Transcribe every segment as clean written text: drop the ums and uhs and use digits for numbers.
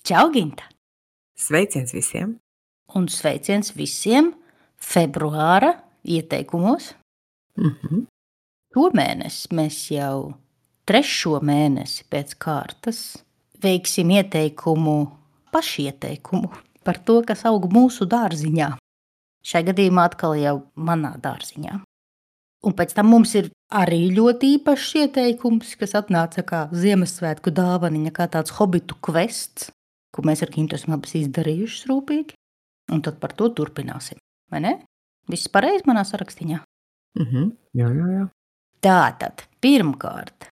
Čau, Ginta! Sveiciens visiem! Un sveiciens visiem februāra ieteikumos. Šomēnes mēs jau 3. mēnesi pēc kārtas veiksim ieteikumu, pašieteikumu par to, kas aug mūsu dārziņā. Šai gadījumā atkal jau manā dārziņā. Un pēc tam mums ir arī ļoti īpašs ieteikums, kas atnāca kā Ziemassvētku dāvaniņa, kā tāds hobitu kvests, ko mēs ar Gintu esam abas izdarījušas rūpīgi. Un tad par to turpināsim, vai ne? Viss pareizi manā sarakstiņā? Jā. Tātad, pirmkārt,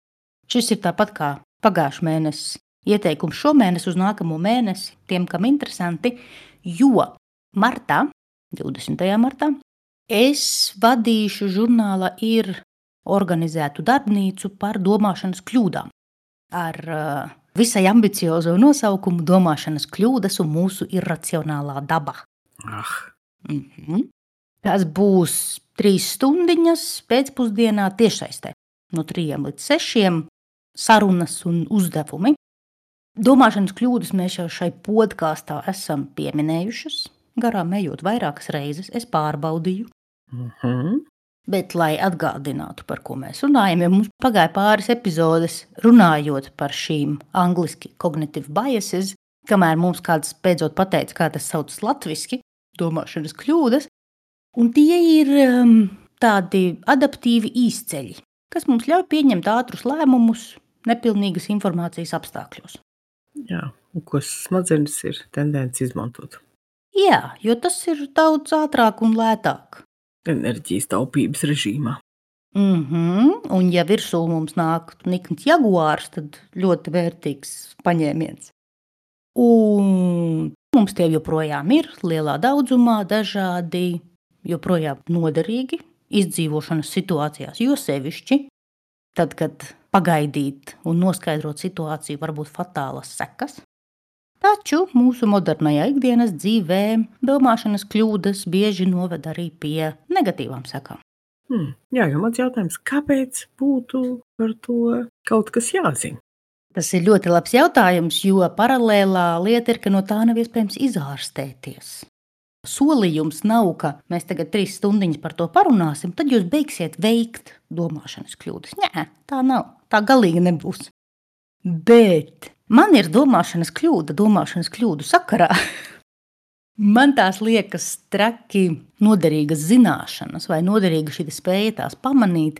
šis ir tāpat kā pagājušā mēnesis ieteikums šomēnes uz nākamo mēnesi, tiem, kam interesanti, jo martā, 20. martā, es vadīšu žurnāla ir organizētu darbnīcu par domāšanas kļūdām. Ar visai ambiciozo nosaukumu domāšanas kļūdas un mūsu irracionālā daba. Tas būs 3 stundiņas pēcpusdienā tiešsaistē. No 3 līdz 6 sarunas un uzdevumi. Domāšanas kļūdas mēs jau šai podkāstā esam pieminējušas. Garām ejot vairākas reizes, es pārbaudīju. Bet, lai atgādinātu, par ko mēs runājam, jo mums pagāja pāris epizodes runājot par šīm angliski cognitive biases, kamēr mums kāds beidzot pateica, kā tas saucas latviski, domāšanas kļūdas, un tie ir tādi adaptīvi īsceļi, kas mums ļauj pieņemt ātrus lēmumus nepilnīgas informācijas apstākļos. Jā, un ko smadzenes ir tendence izmantot. Jā, jo tas ir daudz ātrāk un lētāk. Enerģijas taupības režīmā. Un ja virsū mums nāk nikns jaguārs, tad ļoti vērtīgs paņēmiens. Un mums tie joprojām ir lielā daudzumā, dažādi, joprojām noderīgi izdzīvošanas situācijās, jo sevišķi tad, kad pagaidīt un noskaidrot situāciju var būt fatālas sekas. Taču mūsu modernajā ikdienas dzīvē domāšanas kļūdas bieži noved arī pie negatīvām sekām. Jā, jo mans jautājums, kāpēc būtu par to kaut kas jāzina? Tas ir ļoti labs jautājums, jo paralēlā lieta ir, ka no tā nav iespējams izārstēties. Solījums nav, ka mēs tagad 3 stundiņas par to parunāsim, tad jūs beigsiet veikt domāšanas kļūdas. Nē, tā nav, tā galīgi nebūs. Bet man ir domāšanas kļūdu sakarā. Man tās liekas traki noderīgas zināšanas vai noderīga šī spēja tās pamanīt,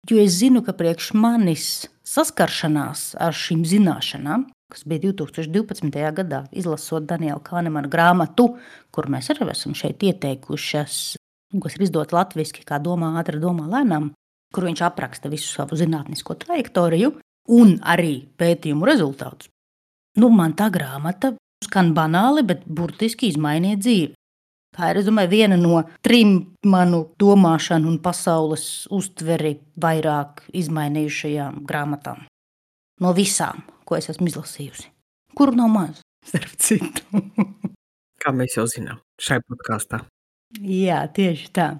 jo es zinu, ka priekš manis saskaršanās ar šīm zināšanām, kas bija 2012. gadā, izlasot Daniela Kahnemana grāmatu, kur mēs arī esam šeit ieteikušas, kas ir izdota latviski kā Domā ātri, domā lēnām, kur viņš apraksta visu savu zinātnisko trajektoriju un arī pētījumu rezultātus. Man tā grāmata skan banāli, bet burtiski izmainīja dzīvi. Tā ir, es domāju, viena no 3 manu domāšanu un pasaules uztveri vairāk izmainījušajām grāmatām. No visām, ko es esmu izlasījusi. Kuru nav maz, starp citu. Kā mēs jau zinām, šai podkāstā. Jā, tieši tā.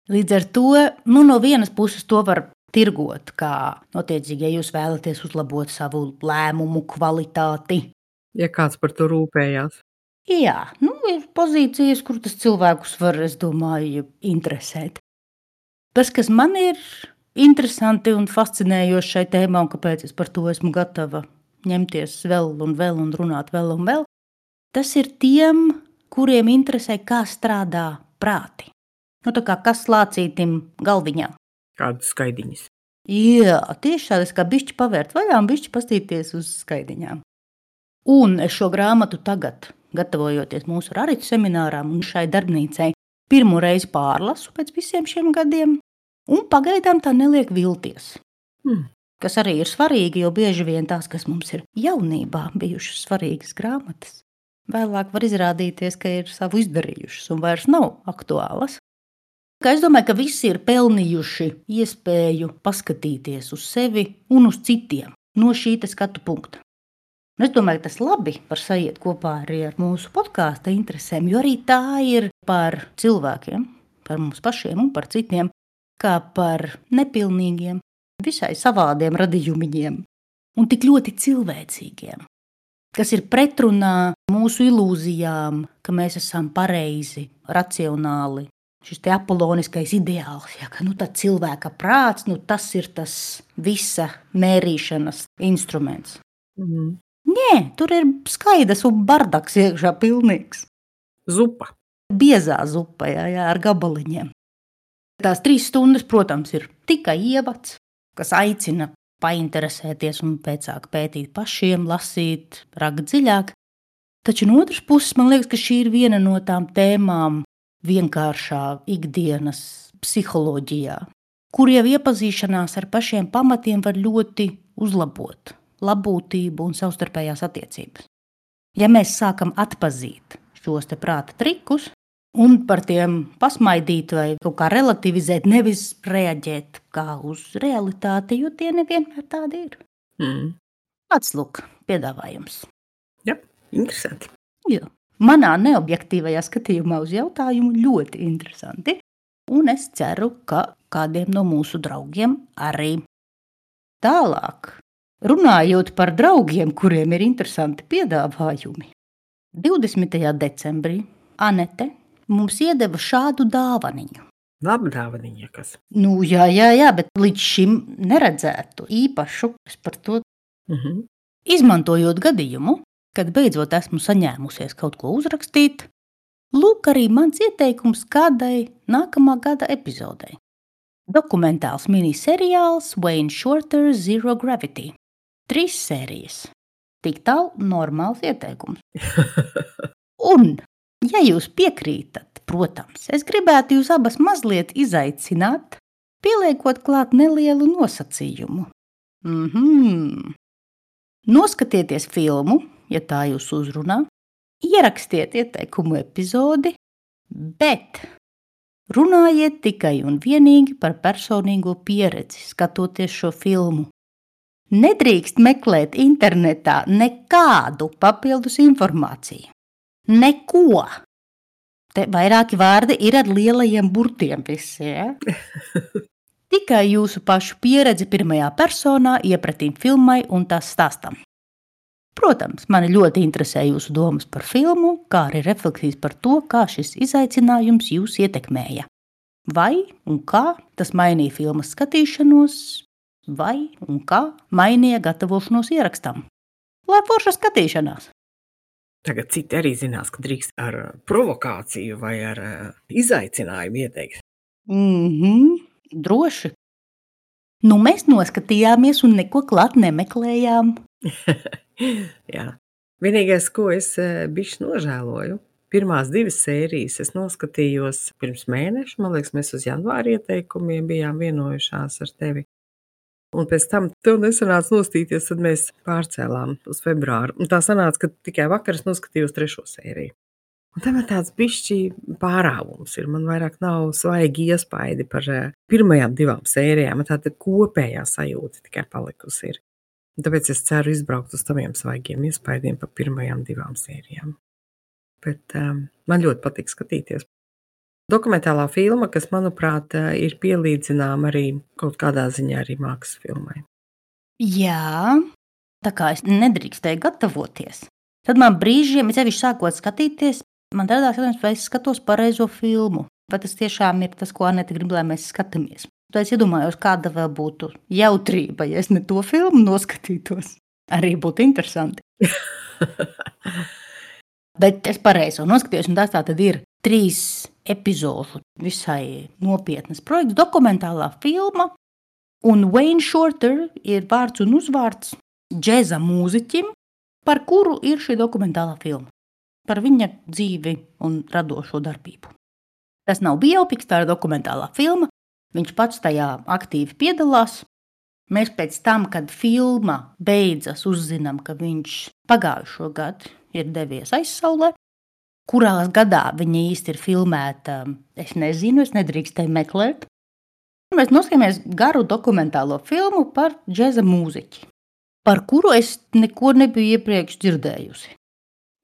Līdz ar to, no vienas puses to var tirgot, kā notiecīgi, ja jūs vēlaties uzlabot savu lēmumu kvalitāti. Ja kāds par to rūpējās. Jā, ir pozīcijas, kur tas cilvēkus var, es domāju, interesēt. Tas, kas man ir interesanti un fascinējoši šai tēmā, un kāpēc es par to esmu gatava ņemties vēl un runāt vēl un vēl, tas ir tiem, kuriem interesē, kā strādā prāti. Tā kā kas lācītim galviņā. Kādas skaidiņas. Jā, tieši tādas kā bišķi pavērt vaļā un bišķi pastīties uz skaidiņām. Un es šo grāmatu tagad, gatavojoties mūsu Raritu seminārām un šai darbnīcai, pirmo reizi pārlasu pēc visiem šiem gadiem, un pagaidām tā neliek vilties. Kas arī ir svarīgi, jo bieži vien tās, kas mums ir jaunībā bijušas svarīgas grāmatas, vēlāk var izrādīties, ka ir savu izdarījušas un vairs nav aktuālas. Es domāju, ka visi ir pelnījuši iespēju paskatīties uz sevi un uz citiem no šī skatu punkta. Es domāju, ka tas labi var sajiet kopā arī ar mūsu podkāsta interesēm, jo arī tā ir par cilvēkiem, par mums pašiem un par citiem, kā par nepilnīgiem, visai savādiem radījumiņiem un tik ļoti cilvēcīgiem. kas ir pretrunā mūsu ilūzijām, ka mēs esam pareizi, racionāli. Šis te apoloniskais ideāls, ja, ka tad cilvēka prāts, tas ir tas visa mērīšanas instruments. Nē, tur ir skaidrs un bardaks iekšā pilnīgs. Zupa. Biezā zupa, jā, ar gabaliņiem. Tās 3 stundas, protams, ir tikai ievads, kas aicina painteresēties un pēcāk pētīt pašiem, lasīt, rakt dziļāk. Taču no otras puses, man liekas, ka šī ir viena no tām tēmām vienkāršā ikdienas psiholoģijā, kur jau iepazīšanās ar pašiem pamatiem var ļoti uzlabot labbūtību un savstarpējās attiecības. Ja mēs sākam atpazīt šos te prāta trikus un par tiem pasmaidīt vai kaut kā relativizēt, nevis reaģēt kā uz realitāti, jo tie nevienmēr tādi ir. Pats lūk, piedāvājums. Jā, interesanti. Jā. Manā neobjektīvajā skatījumā uz jautājumu ļoti interesanti, un es ceru, ka kādiem no mūsu draugiem arī. Tālāk, runājot par draugiem, kuriem ir interesanti piedāvājumi, 20. decembrī Anete mums iedeva šādu dāvaniņu. Laba dāvaniņa, kas? Jā, bet līdz šim neredzētu īpašu, es par to izmantojot gadījumu, kad beidzot esmu saņēmusies kaut ko uzrakstīt, lūk arī mans ieteikums kādai nākamā gada epizodei. Dokumentāls miniseriāls Wayne Shorter Zero Gravity. 3 sērijas. Tik tālu normāls ieteikums. Un, ja jūs piekrītat, protams, es gribētu jūs abas mazliet izaicināt, pieliekot klāt nelielu nosacījumu. Noskatieties filmu, ja tā jūs uzrunā, ierakstiet ieteikumu epizodi, bet runājiet tikai un vienīgi par personīgo pieredzi, skatoties šo filmu. Nedrīkst meklēt internetā nekādu papildus informāciju. Neko. Te vairāki vārdi ir ar lielajiem burtiem visi, ja? Tikai jūsu pašu pieredzi pirmajā personā iepratīm filmai un tās stāstam. Protams, mani ļoti interesē jūsu domas par filmu, kā arī refleksijas par to, kā šis izaicinājums jūs ietekmēja. Vai un kā tas mainīja filmas skatīšanos, vai un kā mainīja gatavošanos ierakstam. Lai forša skatīšanās! Tagad citi arī zinās, ka drīkst ar provokāciju vai ar izaicinājumu ieteikt. Droši. Mēs noskatījāmies un neko klāt nemeklējām. Jā. Vienīgais, ko es bišķi nožēloju, pirmās 2 sērijas es noskatījos pirms mēneša, man liekas, mēs uz janvāra ieteikumiem bijām vienojušās ar tevi. Un pēc tam tev nesanāca nostīties, tad mēs pārcēlām uz februāru. Un tā sanāca, ka tikai vakar es noskatījos 3. sēriju. Un tam ir tāds bišķi pārāvums ir. Man vairāk nav svaigi iespaidi par pirmajām 2 sērijām. Tāda kopējā sajūta tikai palikusi ir. Un tāpēc es ceru izbraukt uz taviem svaigiem iespaidiem par pirmajām 2 sērijām. Bet man ļoti patīk skatīties. Dokumentālā filma, kas, manuprāt, ir pielīdzināma arī kaut kādā ziņā arī mākslas filmai. Jā, tā kā es nedrīkstēju gatavoties. Tad man brīžiem, sevišķi sākot skatīties, man radās jautājums, vai es skatos pareizo filmu. Vai tas tiešām ir tas, ko Anete grib, lai mēs skatāmies. Tad es iedomājos, kāda vēl būtu jautrība, ja es ne to filmu noskatītos. Arī būtu interesanti. Bet es pareizo noskatījos, un tas tā tad ir 3 epizodu visai nopietnas projekts, dokumentālā filma, un Wayne Shorter ir vārds un uzvārds džeza mūziķim, par kuru ir šī dokumentālā filma. Par viņa dzīvi un radošo darbību. Tas nav biopiks, tā ir dokumentālā filma. Viņš pats tajā aktīvi piedalās. Mēs pēc tam, kad filma beidzas, uzzinām, ka viņš pagājušo gadu ir devies aizsaulē. Kurā gadā viņa īsti ir filmēta, es nezinu, es nedrīkstēju meklēt. Mēs noskatāmies garu dokumentālo filmu par džeza mūziķi, par kuru es neko nebiju iepriekš dzirdējusi.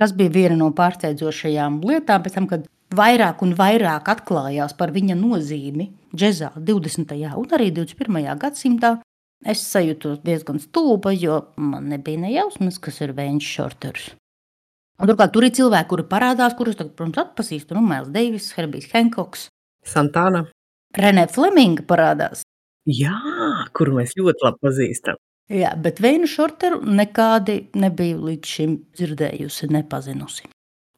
Tas bija viena no pārsteidzošajām lietām, pēc tam, kad vairāk un vairāk atklājās par viņa nozīmi džezā 20. un arī 21. gadsimtā. Es sajūtos diezgan stulba, jo man nebija nejausmas, kas ir Vēņš Šorters. Un turklāt tur ir cilvēki, kuri parādās, kurus tagad, protams, atpazīstu. Miles Davis, Herbijs Hankoks, Santana. Renē Fleminga parādās. Jā, kuru mēs ļoti labi pazīstam. Jā, bet Vēņu Šorteru nekādi nebiju līdz šim dzirdējusi, nepazinusi.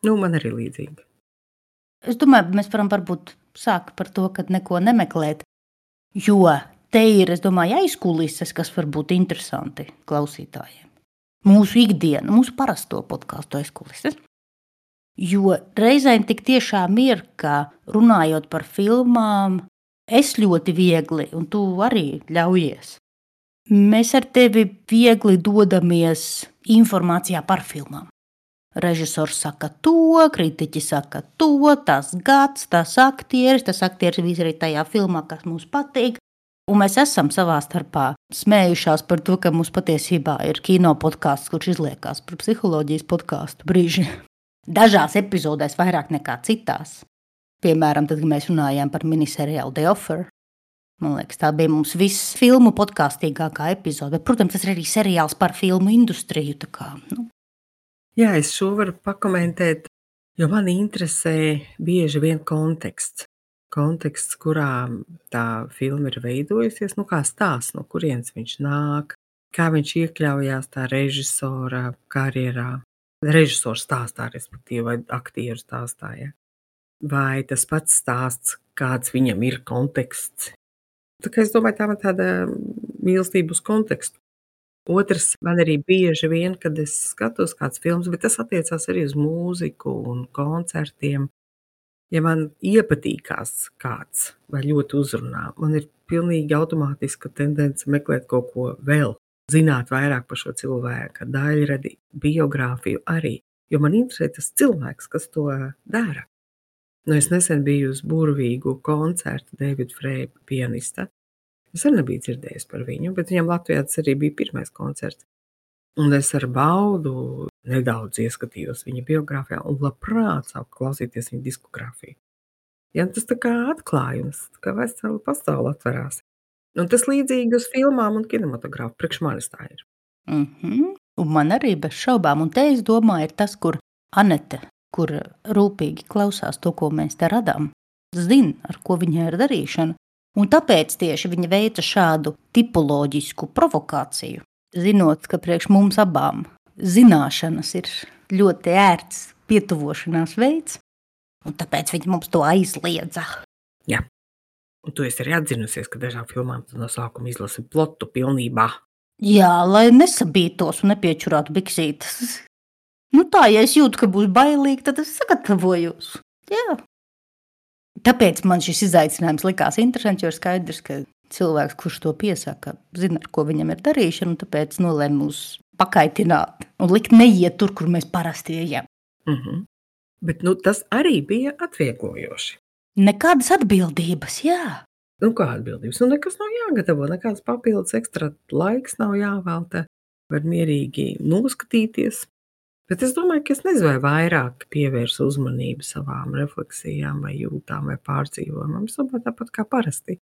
Man arī līdzīgi. Es domāju, mēs varam varbūt sākt par to, kad neko nemeklēt, jo te ir, es domāju, aizkulises, kas var būt interesanti klausītājiem. Mūsu ikdiena, mūsu parasto podcastu aizkulises. Jo reizēm tik tiešām ir, ka runājot par filmām, es ļoti viegli, un tu arī ļaujies. Mēs ar tevi viegli dodamies informācijā par filmām. Režisors saka to, kritiķi saka to, tas gads, tas aktieris viss arī tajā filmā, kas mums patīk. Un mēs esam savā starpā smējušās par to, ka mums patiesībā ir kino podkāsts, kurš izliekās par psiholoģijas podkāstu brīži. Dažās epizodēs vairāk nekā citās. Piemēram, tad, kad mēs runājām par miniseriālu The Offer. Man liekas, tā bija mums viss filmu podkāstīgākā epizode. Bet, protams, tas ir arī seriāls par filmu industriju. Jā, es šo varu pakomentēt, jo man interesē bieži vien konteksts. Konteksts, kurā tā filma ir veidojusies, kā stāsts, no kurienes viņš nāk, kā viņš iekļaujās tā režisora karjerā. Režisors stāstā, respektīvi, vai aktieru stāstā. Ja? Vai tas pats stāsts, kāds viņam ir konteksts. Tā kā es domāju, tā man tāda mīlestība uz kontekstu. Otrs, man arī bieži vien, kad es skatos kāds filmas, bet tas attiecās arī uz mūziku un koncertiem. Ja man iepatīkās kāds vai ļoti uzrunā, man ir pilnīgi automātiska tendence meklēt kaut ko vēl, zināt vairāk par šo cilvēku, daļradi, biogrāfiju arī, jo man interesē tas cilvēks, kas to dara. Es nesen biju uz burvīgu koncertu Davida Freja pianista. Es arī nebiju dzirdējis par viņu, bet viņam Latvijā tas arī bija pirmais koncerts. Un es ar baudu nedaudz ieskatījos viņa biogrāfijā un labprāt sāku klausīties viņa diskogrāfiju. Ja, tas tā kā atklājums, tā kā vesela pasaule atverās. Un tas līdzīgi uz filmām un kinematogrāfu, priekš manis tā ir. Un man arī bez šaubām, un te es domāju, ir tas, kur Anete, kur rūpīgi klausās to, ko mēs te radām, zina, ar ko viņai ir darīšana. Un tāpēc tieši viņa veica šādu tipoloģisku provokāciju, zinot, ka priekš mums abām zināšanas ir ļoti ērts pietuvošanās veids, un tāpēc viņa mums to aizliedza. Jā, un tu esi arī atzinusies, ka dažām filmām tu no sākuma izlasi plotu pilnībā. Jā, lai nesabītos un nepiečurātu biksītes. Tā, ja es jūtu, ka būs bailīgi, tad es sagatavojos. Jā. Tāpēc man šis izaicinājums likās interesants, jo ir skaidrs, ka cilvēks, kurš to piesaka, zina, ar ko viņam ir darīšana, un tāpēc nolēma mūs pakaitināt un likt neiet tur, kur mēs parasti ejam. Bet tas arī bija atvieglojoši. Nekādas atbildības, jā. Kā atbildības? Nekas nav jāgatavo, nekāds papildus ekstra laiks nav jāvelta, var mierīgi noskatīties. Bet es domāju, ka es nezinu, vai vairāk pievērsu uzmanību savām refleksijām vai jūtām vai pārdzīvojumam. Es domāju, tāpat kā parasti.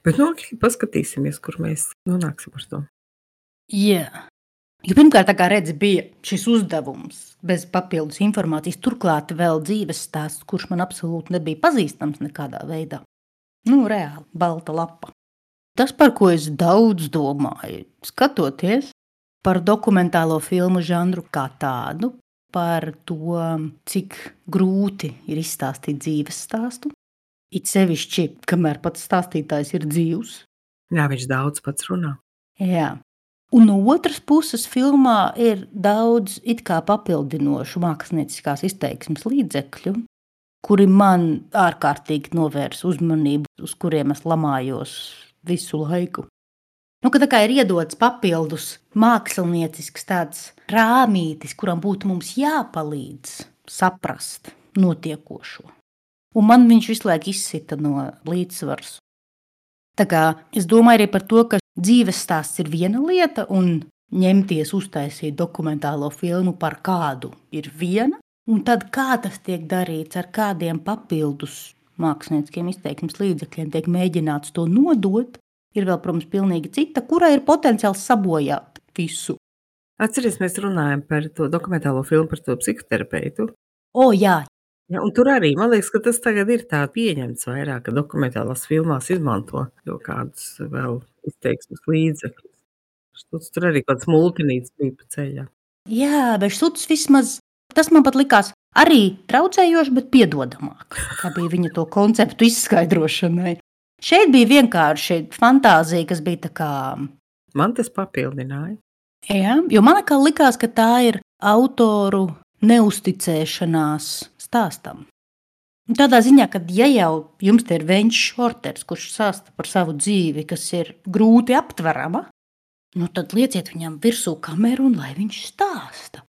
Bet paskatīsimies, kur mēs nonāksim ar to. Jā. Jo pirmkārt, tā kā redzi, bija šis uzdevums bez papildus informācijas, turklāt vēl dzīves stāsts, kurš man absolūti nebija pazīstams nekādā veidā. Reāli, balta lapa. Tas, par ko es daudz domāju, skatoties par dokumentālo filmu žanru kā tādu, par to, cik grūti ir izstāstīt dzīves stāstu. It sevišķi, kamēr pats stāstītājs ir dzīvs. Jā, viņš daudz pats runā. Jā. Un no otras puses filmā ir daudz it kā papildinošu mākslinieckās izteiksmes līdzekļu, kuri man ārkārtīgi novērs uzmanību, uz kuriem es lamājos visu laiku. Ka tā kā ir iedots papildus māksliniecisks tāds rāmītis, kuram būtu mums jāpalīdz saprast notiekošo. Un man viņš visu laiku izsita no līdzsvars. Tā kā es domāju arī par to, ka dzīves stāsts ir viena lieta un ņemties uztaisīt dokumentālo filmu par kādu ir viena, un tad kā tas tiek darīts, ar kādiem papildus mākslinieciskiem izteiksmes līdzekļiem tiek mēģināts to nodot, Ir vēl, protams, pilnīgi cita, kurai ir potenciāls sabojāt visu. Atceries, mēs runājam par to dokumentālo filmu par to psihoterapeitu. Jā. Ja, un tur arī, man liekas, ka tas tagad ir tā pieņemts vairāk, ka dokumentālās filmās izmanto jau kādus vēl izteiksmes līdzekļus. Tur arī kāds multinīts bija pa ceļā. Jā, bet šuts vismaz, tas man pat likās arī traucējoši, bet piedodamāk, kā bija viņa to konceptu izskaidrošanai. Šeit bija vienkārši fantāzija, kas bija tā kā... Man tas papildināja. Jā, jo man kā likās, ka tā ir autoru neusticēšanās stāstam. Tādā ziņā, ka ja jau jums te ir Veņš Šorters, kurš stāsta par savu dzīvi, kas ir grūti aptverama, tad lieciet viņam virsū kameru un lai viņš stāsta.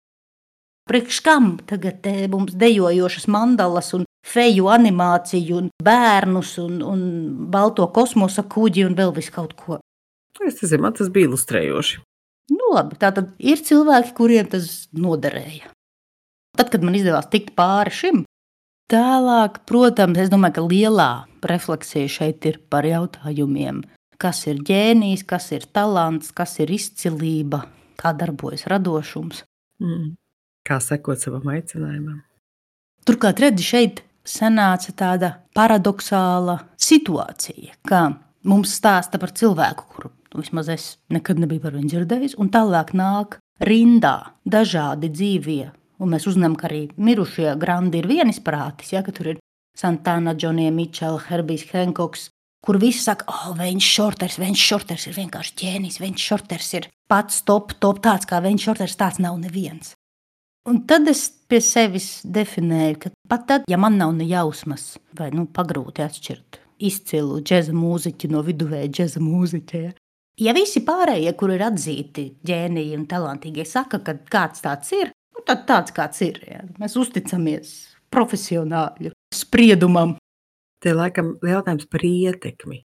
Priekš kam tagad mums dejojošas mandalas un feju animāciju un bērnus un balto kosmosa kuģi un vēl visu kaut ko? Es nezinu, man tas bija ilustrējoši. Labi, tātad ir cilvēki, kuriem tas noderēja. Tad, kad man izdevās tikt pāri šim, tālāk, protams, es domāju, ka lielā refleksija šeit ir par jautājumiem, kas ir ģēnijs, kas ir talants, kas ir izcilība, kā darbojas radošums. Kā sekot savam aicinājumam. Turklāt, redzi, šeit sanāca tāda paradoxāla situācija, kā mums stāsta par cilvēku, kuru vismaz es nekad nebiju par viņu dzirdējis, un tālāk nāk rindā dažādi dzīvie, un mēs uzzinām, ka arī mirušie grandi ir vienisprātis, ja, ka tur ir Santana, Džonija Mičela, Herbijs Henkoks, kur visi saka, Veņš Šorters ir vienkārši ģēnijs, Veņš Šorters ir pats top, tāds kā Veņš Šorters, tāds nav neviens. Un tad es pie sevis definēju, ka pat tad, ja man nav ne jausmas, vai pagrūti atšķirt izcilu džeza mūziķi no viduvēja džeza mūziķa, ja visi pārējie, kur ir atzīti ģēniji un talantīgie, saka, ka kāds tāds ir, tad tāds kāds ir. Ja. Mēs uzticamies profesionāļu spriedumam. Te laikam jautājums par ietekmi.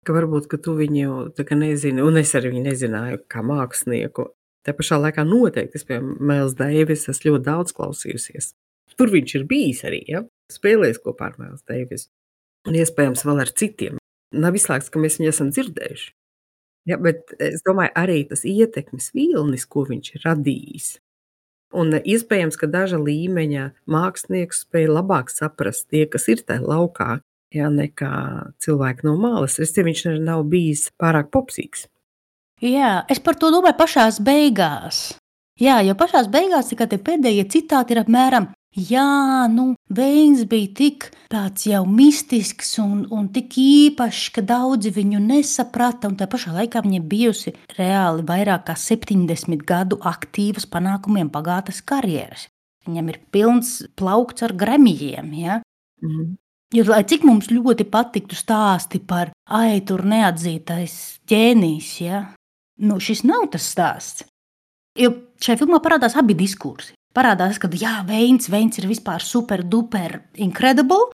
Ka varbūt, ka tu viņu tā kā nezini, un es arī viņu nezināju kā mākslinieku. Te pašā laikā noteikti, es piemēram Miles Davis, es ļoti daudz klausījusies. Tur viņš ir bijis arī, ja? Spēlējis kopā ar Miles Davis. Un iespējams vēl ar citiem. Nav izslēgts, ka mēs viņu esam dzirdējuši. Ja, bet es domāju, arī tas ietekmes vilnis, ko viņš ir radījis. Un iespējams, ka daža līmeņa mākslinieks spēja labāk saprast tie, kas ir tajā laukā, ja, nekā cilvēki no malas. Viņš nav bijis pārāk popsīgs. Jā, es par to domāju pašās beigās. Jā, jo pašās beigās tikai tie pēdējie citāti ir apmēram, Veins bija tik tāds jau mistisks un tik īpašs, ka daudzi viņu nesaprata, un tā pašā laikā viņa bijusi reāli vairāk kā 70 gadu aktīvas panākumiem bagātas karjeras. Viņam ir pilns plaukts ar Gramijiem, ja? Jo, lai cik mums ļoti patiktu stāsti par tur neatzītais ģēnijs, ja? Šis nav tas stāsts. Jo šajā filmā parādās abi diskursi. Parādās, ka Veins ir vispār super duper incredible,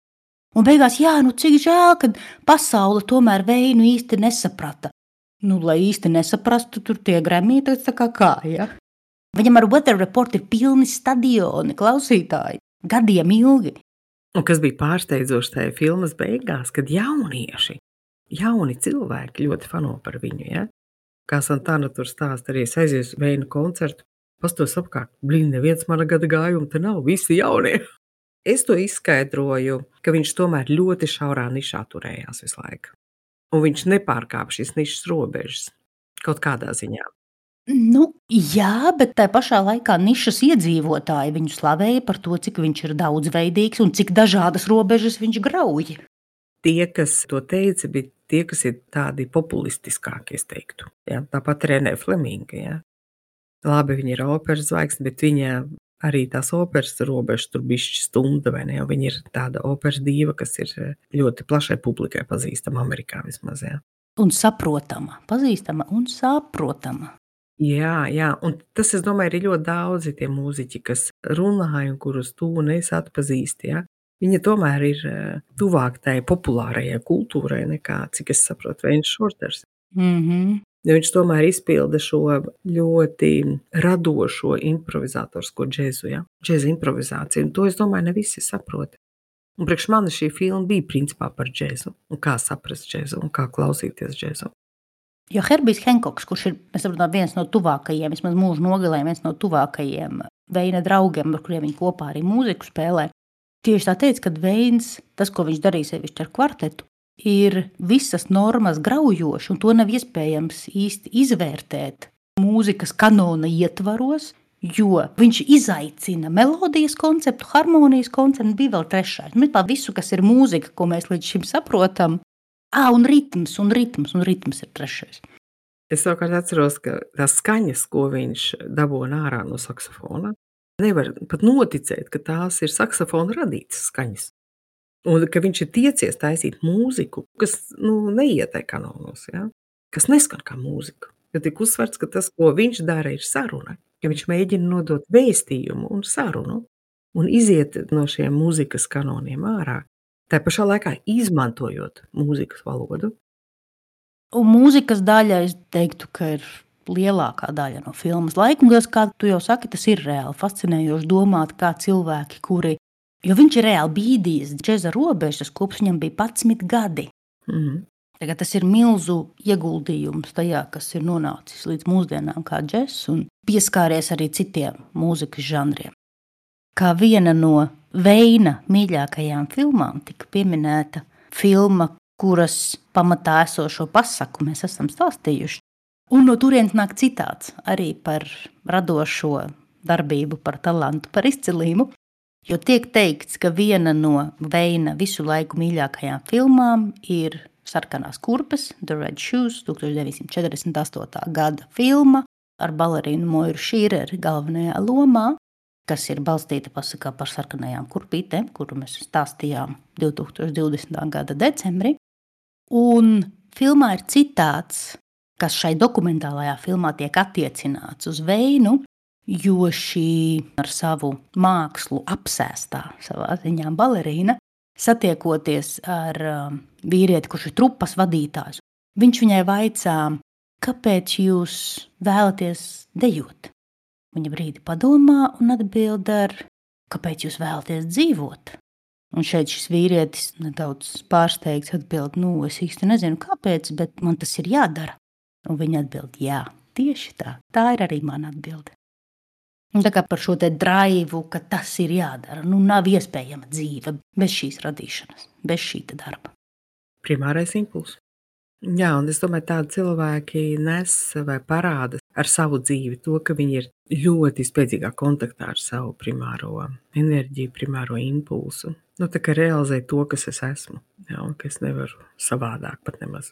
un beigās, cik žēl, ka pasaule tomēr Veinu īsti nesaprata. Lai īsti nesaprastu, tur tie Grammy tā kā, ja? Viņam ar Weather Report ir pilni stadioni, klausītāji, gadiem ilgi. Un kas bija pārsteidzoši tajā filmas beigās, kad jauni cilvēki ļoti fano par viņu, ja? Kā Santana tur stāsta, arī es aizies Veinu koncertu, pastos apkārt, neviens mana gada gājuma te nav, visi jaunie. Es to izskaidroju, ka viņš tomēr ļoti šaurā nišā turējās visu laiku. Un viņš nepārkāpa šīs nišas robežas kaut kādā ziņā. Jā, bet tā pašā laikā nišas iedzīvotāji viņu slavēja par to, cik viņš ir daudzveidīgs un cik dažādas robežas viņš grauj. Tie, kas to teica, bija tie, kas ir tādi populistiskāki, es teiktu. Ja? Tāpat Renē Fleminga, ja? Labi, viņa ir operas zvaigzne, bet viņa arī tās operas robežas tur bišķi stunda, vai ne? Viņa ir tāda operas dīva, kas ir ļoti plašai publikai pazīstama Amerikā vismaz, ja? Un saprotama, pazīstama un saprotama. Jā, un tas, es domāju, ir ļoti daudzi tie mūziķi, kas runāja un kurus tu un es atpazīsti, ja? Viņa tomēr ir tuvāk tai populārajai kultūrai nekā, cik es saprotu, Veņš Šorters. Jo viņš tomēr izpilda šo ļoti radošo improvizatorisko džezu, ja? Džeza improvizāciju, un to, es domāju, ne visi saprot. Un priekš mani šī filma bija principā par džezu, un kā saprast džezu, un kā klausīties džezu. Jo Herbijs Henkoks, kurš ir, mēs saprotam, viens no tuvākajiem, vismaz mūža nogalē, viens no tuvākajiem Veina draugiem, ar kuriem viņi kopā arī mūziku spēlē, tieši tā teica, ka Veins, tas, ko viņš darīja sevišķi ar kvartetu, ir visas normas graujoši, un to nav iespējams īsti izvērtēt mūzikas kanona ietvaros, jo viņš izaicina melodijas konceptu, harmonijas konceptu, bija vēl trešais. Mēs tā visu, kas ir mūzika, ko mēs līdz šim saprotam, un ritms ir trešais. Es savukārt atceros, ka tās skaņas, ko viņš dabūna ārā no saksofona, nevar pat noticēt, ka tās ir saksofona radītas skaņas. Un ka viņš ir tiecies taisīt mūziku, kas neiet tai kanonos, ja? Kas neskan kā mūzika. Jo tik uzsverts, ka tas, ko viņš dara, ir saruna. Ja viņš mēģina nodot vēstījumu un sarunu un iziet no šiem mūzikas kanoniem ārā, tā pašā laikā izmantojot mūzikas valodu. Un mūzikas daļa, es teiktu, ka ir lielākā daļa no filmas laika. Un, kā tu jau saki, tas ir reāli fascinējoši domāt, kā cilvēki, kuri, jo viņš ir reāli bīdījis džeza robežas, kopš viņam bija 11 gadi. Tagad tas ir milzu ieguldījums tajā, kas ir nonācis līdz mūsdienām kā džess un pieskāries arī citiem mūzikas žanriem. Kā viena no Veina mīļākajām filmām tika pieminēta filma, kuras pamatā esošo pasaku mēs esam stāstījuši. Un no turienes nāk citāts arī par radošo darbību, par talantu, par izcilību. Jo tiek teikts, ka viena no Veina visu laiku mīļākajām filmām ir Sarkanās kurpes, The Red Shoes, 1948. gada filma ar balerīnu Moiru Šīreri galvenajā lomā, kas ir balstīta pasakā par sarkanajām kurpītēm, kuru mēs stāstījām 2020. gada decembrī. Un filmā ir citāts, kas šai dokumentālajā filmā tiek attiecināts uz Veinu, jo šī ar savu mākslu apsēstā savā ziņā balerīna, satiekoties ar vīrieti, kurš ir trupas vadītājs, viņš viņai vaicā, kāpēc jūs vēlaties dejot? Viņa brīdi padomā un atbild ar, kāpēc jūs vēlaties dzīvot? Un šeit šis vīrietis nedaudz pārsteigts atbild, es īsti nezinu kāpēc, bet man tas ir jādara. Un viņa atbild, jā, tieši tā, tā ir arī mana atbilde. Un tā kā par šo te draivu, ka tas ir jādara, nav iespējama dzīve bez šīs radīšanas, bez šī darba. Primārais impulss. Jā, un es domāju, tādi cilvēki nes vai parāda ar savu dzīvi to, ka viņi ir ļoti spēcīgā kontaktā ar savu primāro enerģiju, primāro impulsu. Tā kā realizē to, kas es esmu, jā, un ka es nevaru savādāk pat nemaz.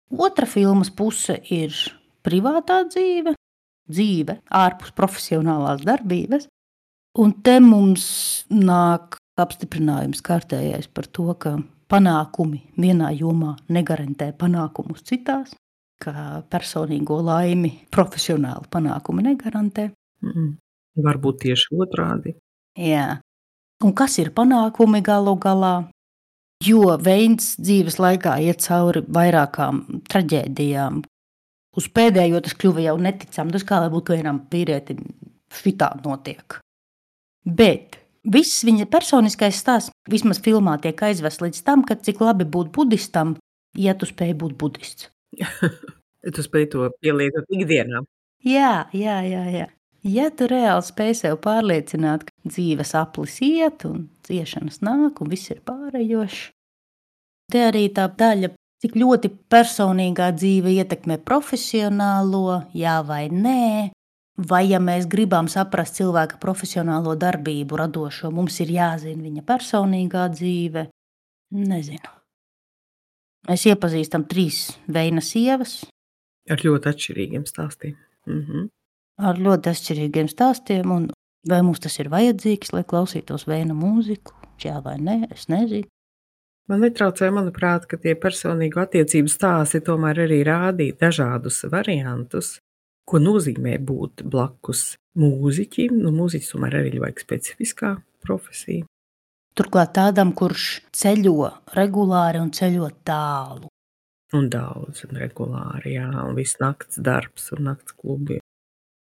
Otra filmas puse ir privātā dzīve ārpus profesionālās darbības, un te mums nāk apstiprinājums kārtējais par to, ka panākumi vienā jomā negarantē panākumus citās, ka personīgo laimi profesionāli panākumi negarantē. Varbūt tieši otrādi. Jā. Un kas ir panākumi galu galā? Jo Veins dzīves laikā iet cauri vairākām traģēdijām. Uz pēdējo tas kļuva jau neticami. Tas kā lai būtu vienam vīrietim šitā notiek. Bet viss viņa personiskais stāsts vismaz filmā tiek aizvests līdz tam, ka cik labi būt budistam, ja tu spēj būt budists. Tu spēj to pielietot ikdienā. Jā. Ja tu reāli spēj sev pārliecināt, ka dzīves aplis iet un ciešanas nāk un viss ir pārējošs. Te arī tā daļa, cik ļoti personīgā dzīve ietekmē profesionālo, jā vai nē, vai ja mēs gribam saprast cilvēka profesionālo darbību radošo, mums ir jāzina viņa personīgā dzīve. Nezinu. Mēs iepazīstam 3 Veina sievas. Ar ļoti atšķirīgiem stāstiem. Ar ļoti atšķirīgiem stāstiem, un vai mums tas ir vajadzīgs, lai klausītos Veina mūziku, jā vai nē, es nezinu. Man netraucē, manuprāt, ka tie personīgo attiecību stāsti tomēr arī rādīja dažādus variantus, ko nozīmē būt blakus mūziķim. Mūziķis tomēr arī vajag specifiskā profesija. Turklāt tādam, kurš ceļo regulāri un ceļo tālu. Un daudz, un regulāri, jā, un viss nakts darbs un nakts klubi.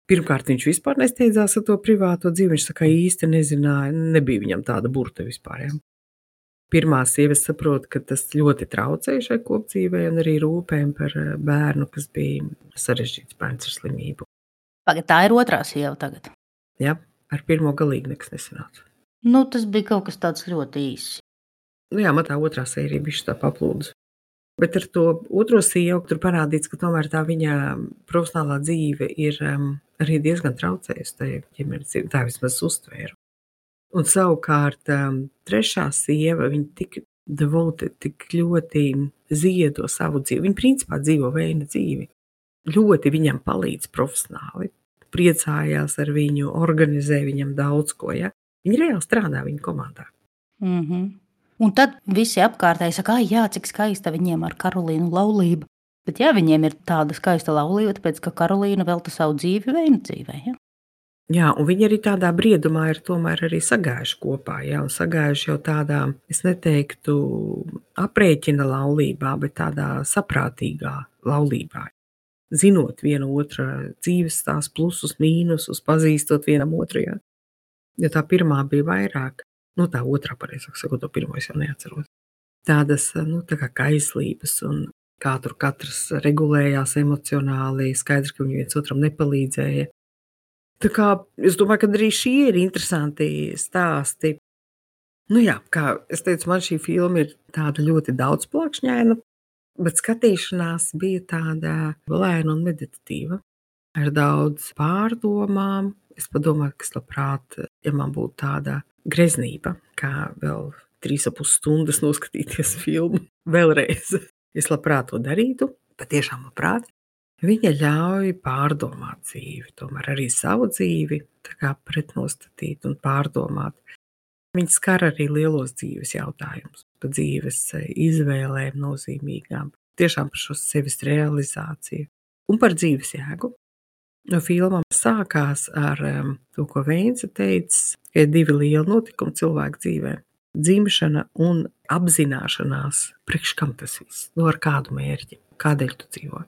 Pirmkārt, viņš vispār nesteidzās ar to privāto dzīvi, viņš tā kā īsti nezināja, nebija viņam tāda burta vispār, jā. Pirmā sieva saprot, ka tas ļoti traucēja šai kopdzīvei un arī rūpēm par bērnu, kas bija sarežģīts bērns ar slimību. Pagad, tā ir otrā sieva tagad. Ja? Ar pirmo galīgi nekas nesanāca. Nu, tas bija kaut kas tāds ļoti īss. Nu jā, man tā otrā sērija bišķi tā paplūdus. Bet ar to otro sievu tur parādīts, ka tomēr tā viņa profesionālā dzīve ir arī diezgan traucējusi tajā ģimenes dzīvē. Tā vismaz uztvēru. Un savukārt trešā sieva, viņa tik devoted, tik ļoti ziedo savu dzīvi. Viņa principā dzīvo Veina dzīvi. Ļoti viņam palīdz profesionāli. Priecājās ar viņu, organizē viņam daudz ko. Ja? Viņa reāli strādā viņa komandā. Un tad visi apkārtēji saka, jā, cik skaista viņiem ar Karolīnu laulība. Bet jā, viņiem ir tāda skaista laulība, tāpēc, ka Karolīna velta savu dzīvi Veina dzīvē. Ja? Jā, un viņi arī tādā briedumā ir tomēr arī sagājuši kopā, ja, un sagājuši jau tādā, es neteiktu aprēķina laulībā, bet tādā saprātīgā laulībā. Zinot vienu otru dzīves tās plusus, mīnusus, pazīstot vienam otru, ja. Jo tā pirmā bija vairāk, nu tā otrā pareizāk sakot, to pirmo es jau neatceros. Tādas, nu tā kā kaislības un kā tur katrs regulējās emocionāli, skaidrs, ka viņi viens otram nepalīdzēja. Tā kā es domāju, ka arī šie ir interesanti stāsti. Nu jā, kā es teicu, man šī filma ir tāda ļoti daudzplakšņaina, bet skatīšanās bija tāda lēna un meditatīva, ar daudz pārdomām. Es padomāju, ka es labprāt, ja man būtu tāda greznība, kā vēl 3,5 stundas noskatīties filmu vēlreiz. Es labprāt to darītu, patiešām labprāt. Viņa ļauj pārdomāt dzīvi, tomēr arī savu dzīvi tā kā pretnostatīt un pārdomāt. Viņa skar arī lielos dzīves jautājumus, par dzīves izvēlēm nozīmīgām, tiešām par šo sevis realizāciju un par dzīves jēgu. No filmām sākās ar to, ko Veince teica, ka ir 2 lieli notikumi cilvēku dzīvē – dzimšana un apzināšanās, priekš kam tas viss, no ar kādu mērķi, kādēļ tu dzīvo.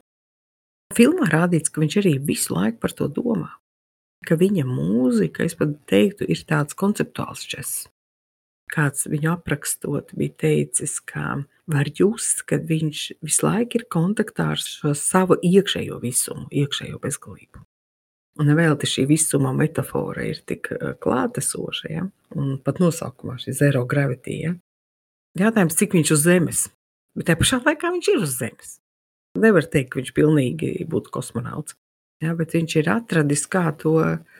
Filmā rādīts, ka viņš arī visu laiku par to domā, ka viņa mūzika, es pat teiktu, ir tāds konceptuāls džess. Kāds viņu aprakstot bija teicis, ka var just, ka viņš visu laiku ir kontaktā ar šo savu iekšējo visumu, iekšējo bezgalību. Un nevēlti šī visuma metafora ir tik klātesoša, ja? Un pat nosaukumā šī zero gravity. Ja? Jātājums, cik viņš uz zemes, bet tajā pašā laikā viņš ir uz zemes. Nevar teikt, ka viņš pilnīgi būtu kosmonauts, ja, bet viņš ir atradis, kā to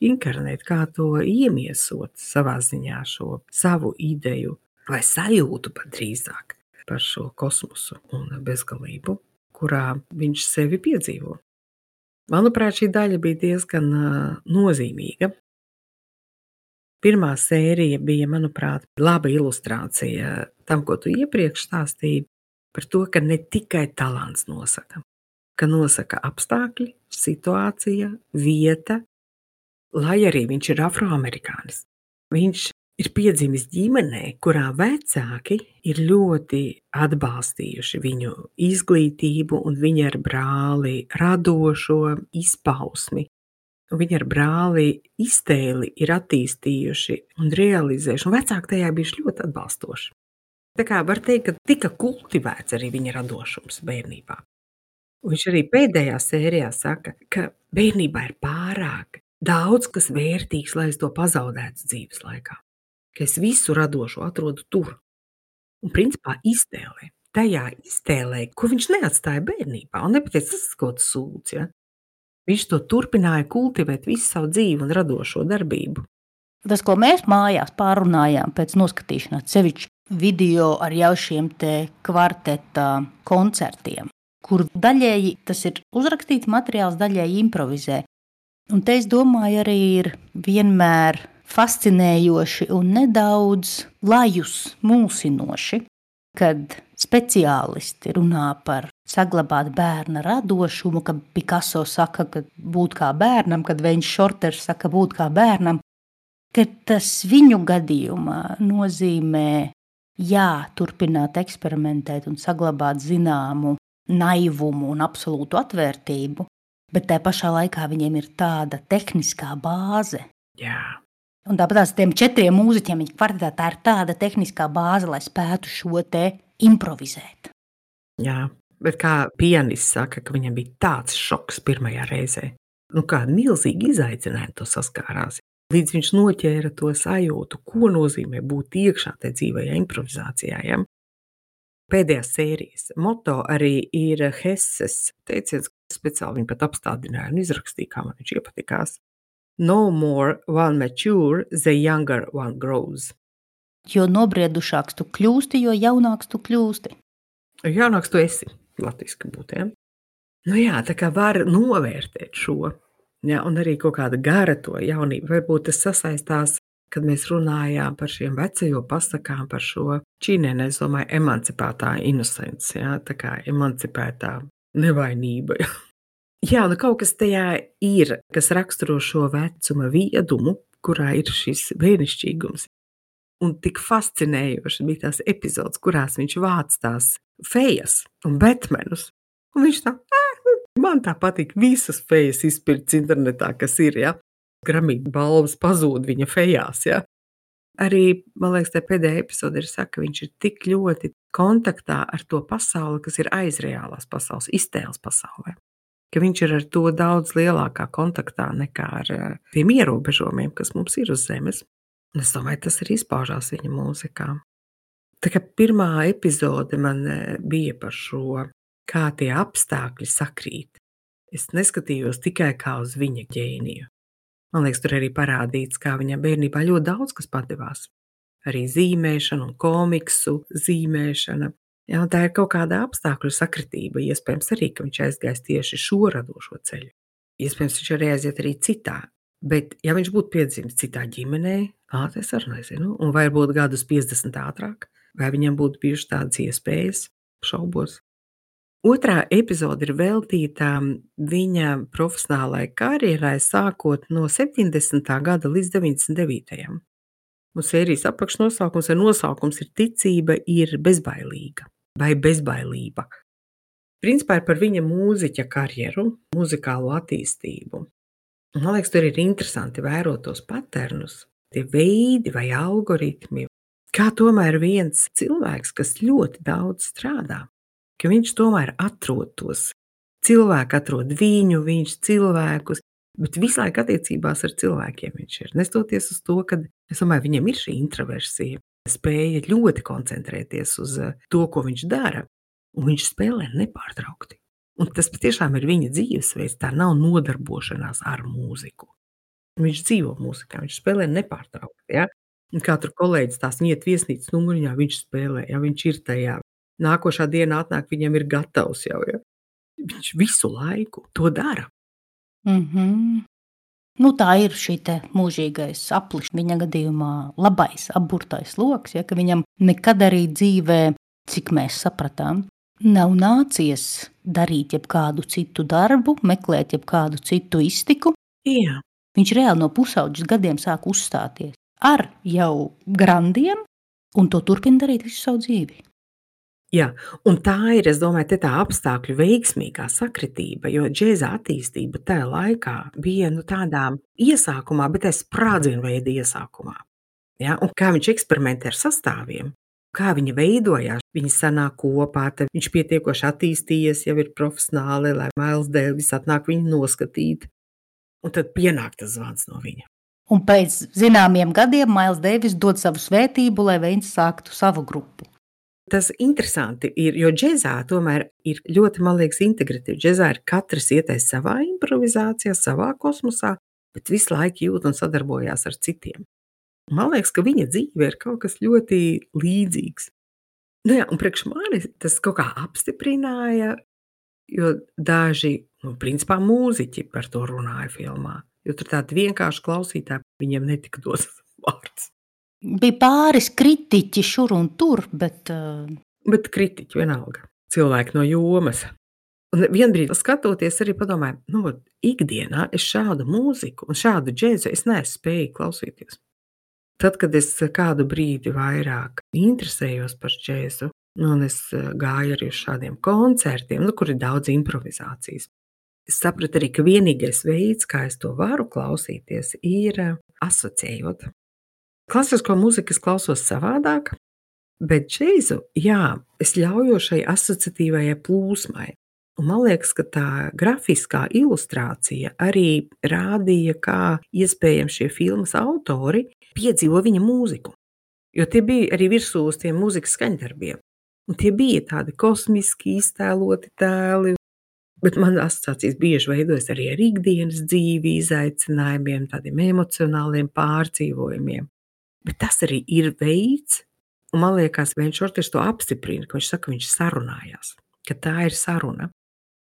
inkarnēt, kā to iemiesot savā ziņā šo savu ideju vai sajūtu pat drīzāk par šo kosmosu un bezgalību, kurā viņš sevi piedzīvo. Manuprāt, šī daļa bija diezgan nozīmīga. Pirmā sērija bija, manuprāt, laba ilustrācija tam, ko tu iepriekš stāstīji, par to, ka ne tikai talants nosaka, ka nosaka apstākļi, situācija, vieta, lai arī viņš ir afroamerikānis. Viņš ir piedzimis ģimenē, kurā vecāki ir ļoti atbalstījuši viņu izglītību un viņa ar brāli radošo izpausmi. Viņa ar brāli iztēli ir attīstījuši un realizējuši, un vecāki tajā bijuši ļoti atbalstoši. Tā kā var teikt, ka tika kultivēts arī viņa radošums bērnībā. Un viņš arī pēdējā sērijā saka, ka bērnībā ir pārāk daudz, kas vērtīgs, lai es to pazaudētu dzīves laikā. Ka es visu radošo atrodu tur. Un principā iztēlē. Tajā iztēlē, ko viņš neatstāja bērnībā. Un nepateic, tas kaut kas sūds, ja? Viņš to turpināja kultivēt visu savu dzīvi un radošo darbību. Tas, ko mēs mājās pārunājām pēc noskatīšanās, sevišķi video ar jau šiem te kvarteta koncertiem, kur daļēji tas ir uzrakstīts materiāls, daļēji improvizē. Un te es domāju arī ir vienmēr fascinējoši un nedaudz lajus mulsinoši, kad speciālisti runā par saglabāt bērna radošumu, kad Picasso saka, ka būt kā bērnam, kad Veins Šorters saka būt kā bērnam, ka tas viņu gadījumā nozīmē turpināt eksperimentēt un saglabāt zināmu naivumu un absolūtu atvērtību, bet tajā pašā laikā viņiem ir tāda tehniskā bāze, Jā. Un tāpat tiem 4 mūziķiem viņa kvartetā tā ir tāda tehniskā bāze, lai spētu šo te improvizēt. Jā, bet kā pianists saka, ka viņam bija tāds šoks pirmajā reizē. Nu, kāda milzīga izaicinājuma to saskārās. Līdz viņš noķēra to sajūtu, ko nozīmē būt iekšā tajā dzīvajā improvizācijā. Ja? Pēdējās sērijas moto arī ir Hesses teiciens, speciāli viņi pat apstādināja un izrakstīja, kā man viņš iepatikās. No more one mature, the younger one grows. Jo nobriedušāks tu kļūsti, jo jaunāks tu kļūsti. Jaunāks tu esi, latviski būtu, ja? Nu jā, tā kā var novērtēt šo, ja, un arī kaut kāda gara to jaunību. Varbūt tas sasaistās, kad mēs runājām par šiem vecajo pasakām, par šo čīnēnē, es domāju, emancipētā innocence, ja, tā kā emancipētā nevainība. Ja. Jā, nu kaut kas tajā ir, kas raksturo šo vecuma viedumu, kurā ir šis brīnišķīgums. Un tik fascinējoši bija tās epizodes, kurās viņš vāc tās fejas un betmenus. Un viņš tā, man tā patīk visas fejas izpirkts internetā, kas ir, ja. Grammy balvas pazūd viņa fejās, ja. Arī, man liekas, tā pēdējā epizode ir saka, ka viņš ir tik ļoti kontaktā ar to pasauli, kas ir aiz reālās pasaules, iztēles pasaulē. Ka viņš ir ar to daudz lielākā kontaktā nekā ar tiem ierobežojumiem, kas mums ir uz zemes. Un es domāju, tas arī izpaužās viņa mūzikā. Tā kā pirmā epizode man bija par šo, kā tie apstākļi sakrīt. Es neskatījos tikai kā uz viņa ģēniju. Man liekas, tur arī parādīts, kā viņam bērnībā ļoti daudz kas padevās. Arī zīmēšana un komiksu zīmēšana. Jā, un tā ir kaut kāda apstākļu sakritība. Iespējams arī, ka viņš aizgājis tieši šo radošo ceļu. Iespējams, viņš arī aiziet arī citā. Bet, ja viņš būtu piedzimis citā ģimenē, es arī nezinu, un vai būtu gadus 50 ātrāk, vai viņam būtu bijušas tādas iespējas, šaubos. Otrā epizode ir veltīta viņa profesionālai karjerai, sākot no 70. gada līdz 99. Un sērijas apakšnosaukums vai nosaukums ir Ticība ir bezbailīga vai bezbailība. Principā ir par viņa mūziķa karjeru, muzikālo attīstību. Man liekas, tur ir interesanti vērot tos paternus, tie veidi vai algoritmi, kā tomēr viens cilvēks, kas ļoti daudz strādā, ka viņš tomēr atrod tos. Cilvēki atrod viņu, viņš cilvēkus, bet visu laiku attiecībās ar cilvēkiem viņš ir. Nestoties uz to, ka, es domāju, viņam ir šī introversija, spēja ļoti koncentrēties uz to, ko viņš dara, un viņš spēlē nepārtraukti. Un tas patiešām ir viņa dzīvesveids, tā nav nodarbošanās ar mūziku. Viņš dzīvo mūzikā, viņš spēlē nepārtraukti. Ja? Un kā tur kolēģis tās iet viesnīcas numuriņā, viņš spēlē, ja viņš ir tajā. Nākošā diena atnāk, viņam ir gatavs jau. Ja? Viņš visu laiku to dara. Nu, tā ir šī te mūžīgais aplis, viņa gadījumā labais, apburtais loks, ja, ka viņam nekad arī dzīvē, cik mēs sapratām, nav nācies darīt jebkādu citu darbu, meklēt jebkādu citu iztiku. Jā. Viņš reāli no pusauģis gadiem sāk uzstāties ar jau grandiem un to turpina darīt visu savu dzīvi. Jā, un tā ir, es domāju, tā apstākļu veiksmīgā sakritība, jo džēza attīstība tajā laikā bija tādā iesākumā, bet sprādzienu veida iesākumā. Ja? Un kā viņš eksperimentē ar sastāviem, kā viņi veidojās, viņi sanāk kopā, tad viņš pietiekoši attīstījies, jau ir profesionāli, lai Miles Davis atnāk viņu noskatīt. Un tad pienāk tas zvans no viņa. Un pēc zināmiem gadiem Miles Davis dod savu svētību, lai viņš sāktu savu grupu. Tas interesanti ir, jo džezā tomēr ir ļoti, man liekas, integratīvi. Džezā ir katrs ietais savā improvizācijā, savā kosmosā, bet visu laiku jūt un sadarbojās ar citiem. Man liekas, ka viņa dzīve ir kaut kas ļoti līdzīgs. Nu jā, un priekš mani tas kaut kā apstiprināja, jo daži, principā mūziķi par to runāja filmā. Jo tur tādi vienkārši klausītāji, viņiem netika dots vārds. Bija pāris kritiķi šur un tur, bet kritiķi vienalga. Cilvēki no jomas. Un vienbrīd skatoties arī padomāju, ikdienā es šādu mūziku un šādu džēzu es neesmu spējīgi klausīties. Tad, kad es kādu brīdi vairāk interesējos par džēzu, un es gāju arī uz šādiem koncertiem, kur ir daudz improvizācijas, es sapratu arī, ka vienīgais veids, kā es to varu klausīties, ir asociējot. Klasisko mūziku es klausos savādāk, bet džēzu, jā, es ļaujos šai asociatīvajai plūsmai. Un man liekas, ka tā grafiskā ilustrācija arī rādīja, kā iespējams šie filmas autori piedzīvo viņa mūziku. Jo tie bija arī virsū uz tiem mūzikas skaņdarbiem. Un tie bija tādi kosmiski iztēloti tēli, bet man asociācijas bieži veidojas arī ar ikdienas dzīvi, izaicinājumiem, tādiem emocionāliem pārdzīvojumiem. Bet tas arī ir veids, un man liekas, Vens Šorters to apstiprina, ka viņš saka, ka viņš sarunājās, ka tā ir saruna.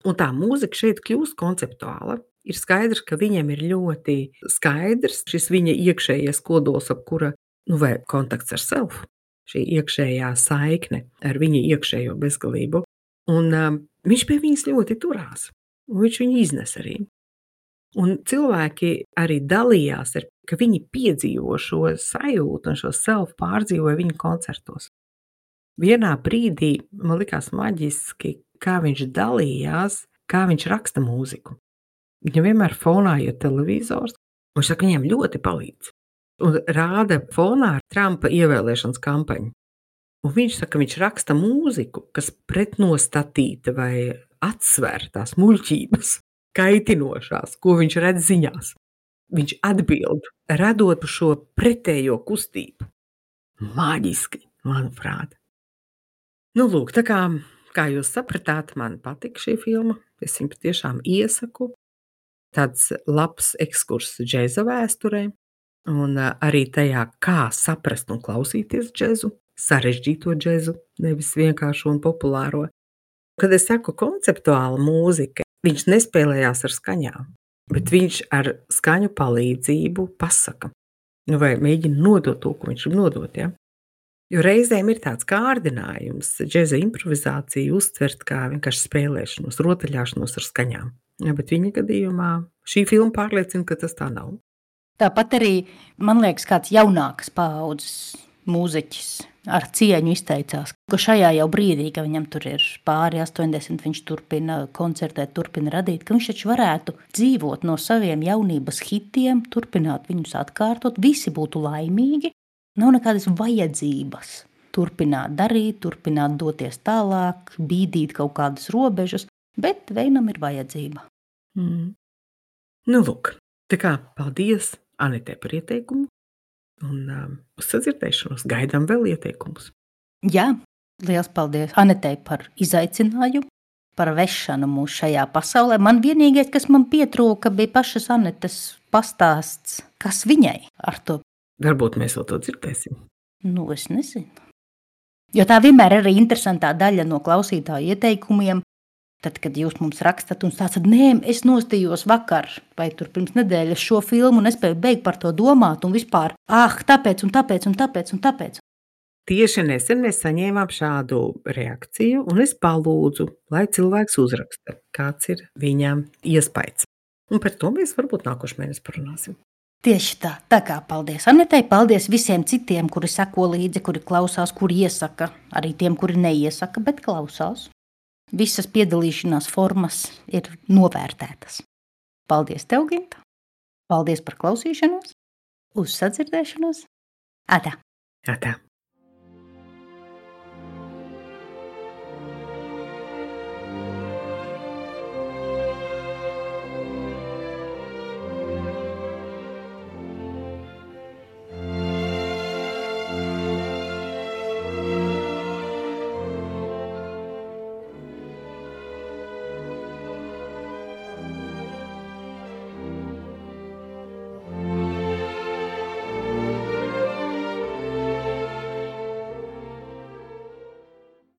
Un tā mūzika šeit kļūst konceptuāla. Ir skaidrs, ka viņam ir ļoti skaidrs šis viņa iekšējais kodols, ap kura, vai kontakts ar self, šī iekšējā saikne ar viņa iekšējo bezgalību. Un viņš pie viņas ļoti turās, un viņš viņu iznes arī. Un cilvēki arī dalījās, ka viņi piedzīvo šo sajūtu un šo self pārdzīvoja viņa koncertos. Vienā brīdī man likās maģiski, kā viņš dalījās, kā viņš raksta mūziku. Viņam vienmēr fonā ir televizors, un viņš saka, viņam ļoti palīdz. Un rāda fonā Trumpa ievēlēšanas kampaņu. Un viņš saka, viņš raksta mūziku, kas pretnostatīta vai atsver tās muļķības, kaitinošās, ko viņš redz ziņās. Viņš atbild, radot šo pretējo kustību. Maģiski, manuprāt. Nu, lūk, tā kā jūs sapratāt, man patika šī filma. Es viņu patiešām iesaku. Tāds labs ekskurss džēza vēsturē. Un arī tajā, kā saprast un klausīties džēzu, sarežģīto džēzu, nevis vienkāršo un populāro. Kad es saku konceptuāla mūzika, viņš nespēlējās ar skaņām, bet viņš ar skaņu palīdzību pasaka. Vai mēģina nodot to, ko viņš grib nodot, ja? Jo reizēm ir tāds kārdinājums džēza improvizāciju uztvert kā vienkārši spēlēšanos, rotaļāšanos ar skaņām. Ja, bet viņa gadījumā šī filma pārliecina, ka tas tā nav. Tāpat arī, man liekas, kāds jaunākas paaudzes mūziķis ar cieņu izteicās, ka šajā jau brīdī, ka viņam tur ir pāri 80, viņš turpina koncertēt, turpina radīt, ka viņš taču varētu dzīvot no saviem jaunības hitiem, turpināt viņus atkārtot, visi būtu laimīgi, nav nekādas vajadzības turpināt darīt, turpināt doties tālāk, bīdīt kaut kādas robežas, bet vienam ir vajadzība. Nu, lūk, tā kā paldies Anetē par ieteikumu. Un uz sadzirdēšanos gaidām vēl ieteikumus. Jā, liels paldies Anetei par izaicinājumu, par vešanu mūs šajā pasaulē. Man vienīgais, kas man pietrūka, bija pašas Anetes pastāsts, kas viņai ar to. Varbūt mēs vēl to dzirdēsim. Nu, es nezinu. Jo tā vienmēr ir arī interesantā daļa no klausītāju ieteikumiem. Tad, kad jūs mums rakstat un stāstat, nē, es nostījos vakar vai tur pirms nedēļas šo filmu un nespēju beigt par to domāt un vispār, tāpēc un tāpēc un tāpēc un tāpēc. Tieši nesen mēs saņēmām šādu reakciju un es palūdzu, lai cilvēks uzraksta, kāds ir viņam iespējas. Un par to mēs varbūt nākošais mēnesis parunāsim. Tieši tā, tā kā paldies Anetei, paldies visiem citiem, kuri seko līdzi, kuri klausās, kuri iesaka, arī tiem, kuri neiesaka, bet klausās. Visas piedalīšanās formas ir novērtētas. Paldies tev, Ginta. Paldies par klausīšanos. Uz sadzirdēšanos. Atā. Atā.